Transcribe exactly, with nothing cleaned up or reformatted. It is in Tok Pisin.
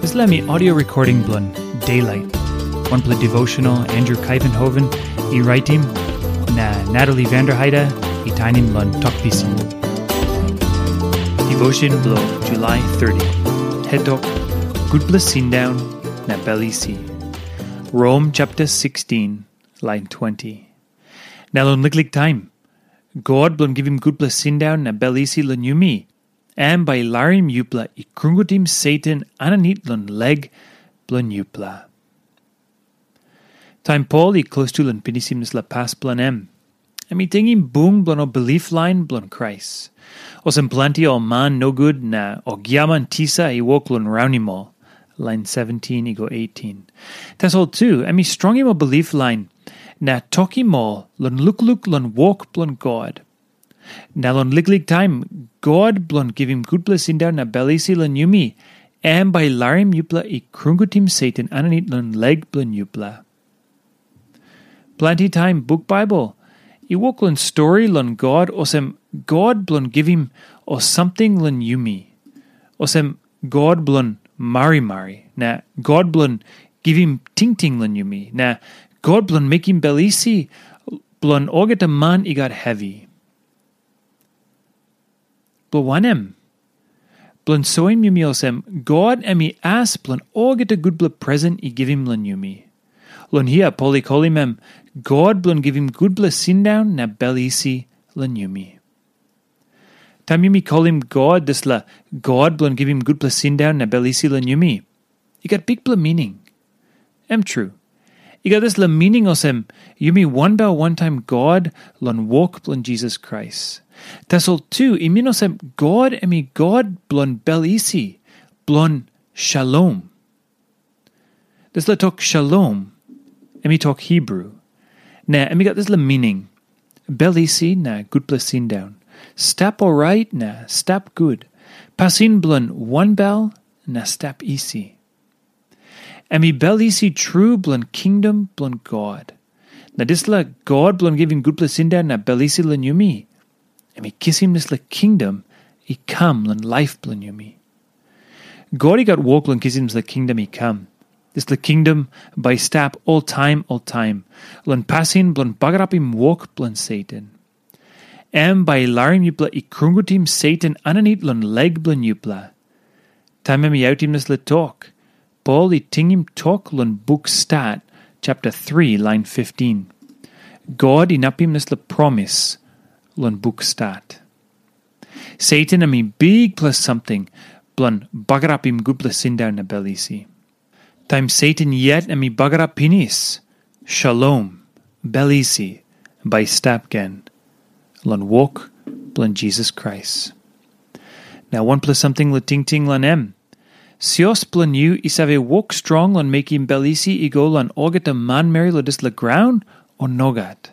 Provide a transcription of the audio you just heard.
Dispela mi audio recording bilong Daylight. Wanpela devotional Andrew Kaivenhoven i raitim, na Natalie Vanderheide i tainim long Tok Pisin. Devotion bilong July thirty. Hetok, Gutpela Sindaun na Bel Isi. Rom chapter sixteen, line twenty. Na long liklik taim, God bilong givim gutpela sindaun na bel isi long yumi, em bai i larim yupela i krungutim Satan aninit long leg bilong yupela. Taim Pol i klostu long pinisim dispela pas bilong em, em i tingim bung bilong ol bilip lain bilong Krais. Olsem planti ol man nogut na ol giaman tisa i wok long raunim ol, lain seventeen i go eighteen. Tasol tu, em i strongim ol bilip lain na tokim ol long lukluk long wok bilong God. Na long liklik taim, God bilong givim gutpela sindaun na bel isi long yumi, em bai i larim yupela i krungutim Satan aninit long leg bilong yupela. Planti taim buk Baibel i wok long stori long God olsem God bilong givim ol samting long yumi, olsem God bilong marimari, na God bilong givim tingting long yumi, na God bilong mekim bel isi bilong olgeta man i gat hevi. Bilong wanem? Bilong soim yumi olsem, God em i as bilong olgeta gutpela presen i givim long yumi. Long hia Pol i kolim em God bilong givim gutpela sindaun na bel isi long yumi. Taim yumi kolim God dispela God bilong givim gutpela sindaun na bel isi long yumi, i gat bikpela mining. Em tru, i gat dispela mining olsem, yumi wanbel wantaim God long wok bilong Jisas Krais. Tasol tu i min olsem God em i God bilong bel isi, bilong shalom. Dispela tok shalom, em i tok Hibru, na em i gat dispela mining, bel isi na gutpela sindaun, stap orait na stap gut, pasin bilong wanbel na stap isi. Em i bel isi tru bilong kingdom bilong God. Na dispela God bilong givim gutpela sindaun na bel isi long yumi, em i kisim dispela kingdom i kam long laip bilong yumi. God i gat wok long kisim dispela kingdom i kam. Dispela kingdom bai i stap oltaim oltaim long pasin bilong bagarapim wok bilong Satan. Em bai i larim yupela i krungutim Satan aninit long leg bilong yupela. Taim em i autim dispela tok, Pol i tingim tok long buk Stat, chapter three, lain fifteen. God inapim dispela promis long buk Stat. Satan em i bikpela samting bilong bagarapim gutpela sindaun na bel isi. Taim Satan yet em i bagarap pinis, shalom, bel isi, bai i stap gen long wok bilong Jisas Krais. Na wanpela samting long tingting long em. Sios bilong yu i save wok strong long mekim bel isi i go long olgeta manmeri long dispela graun, o nogat?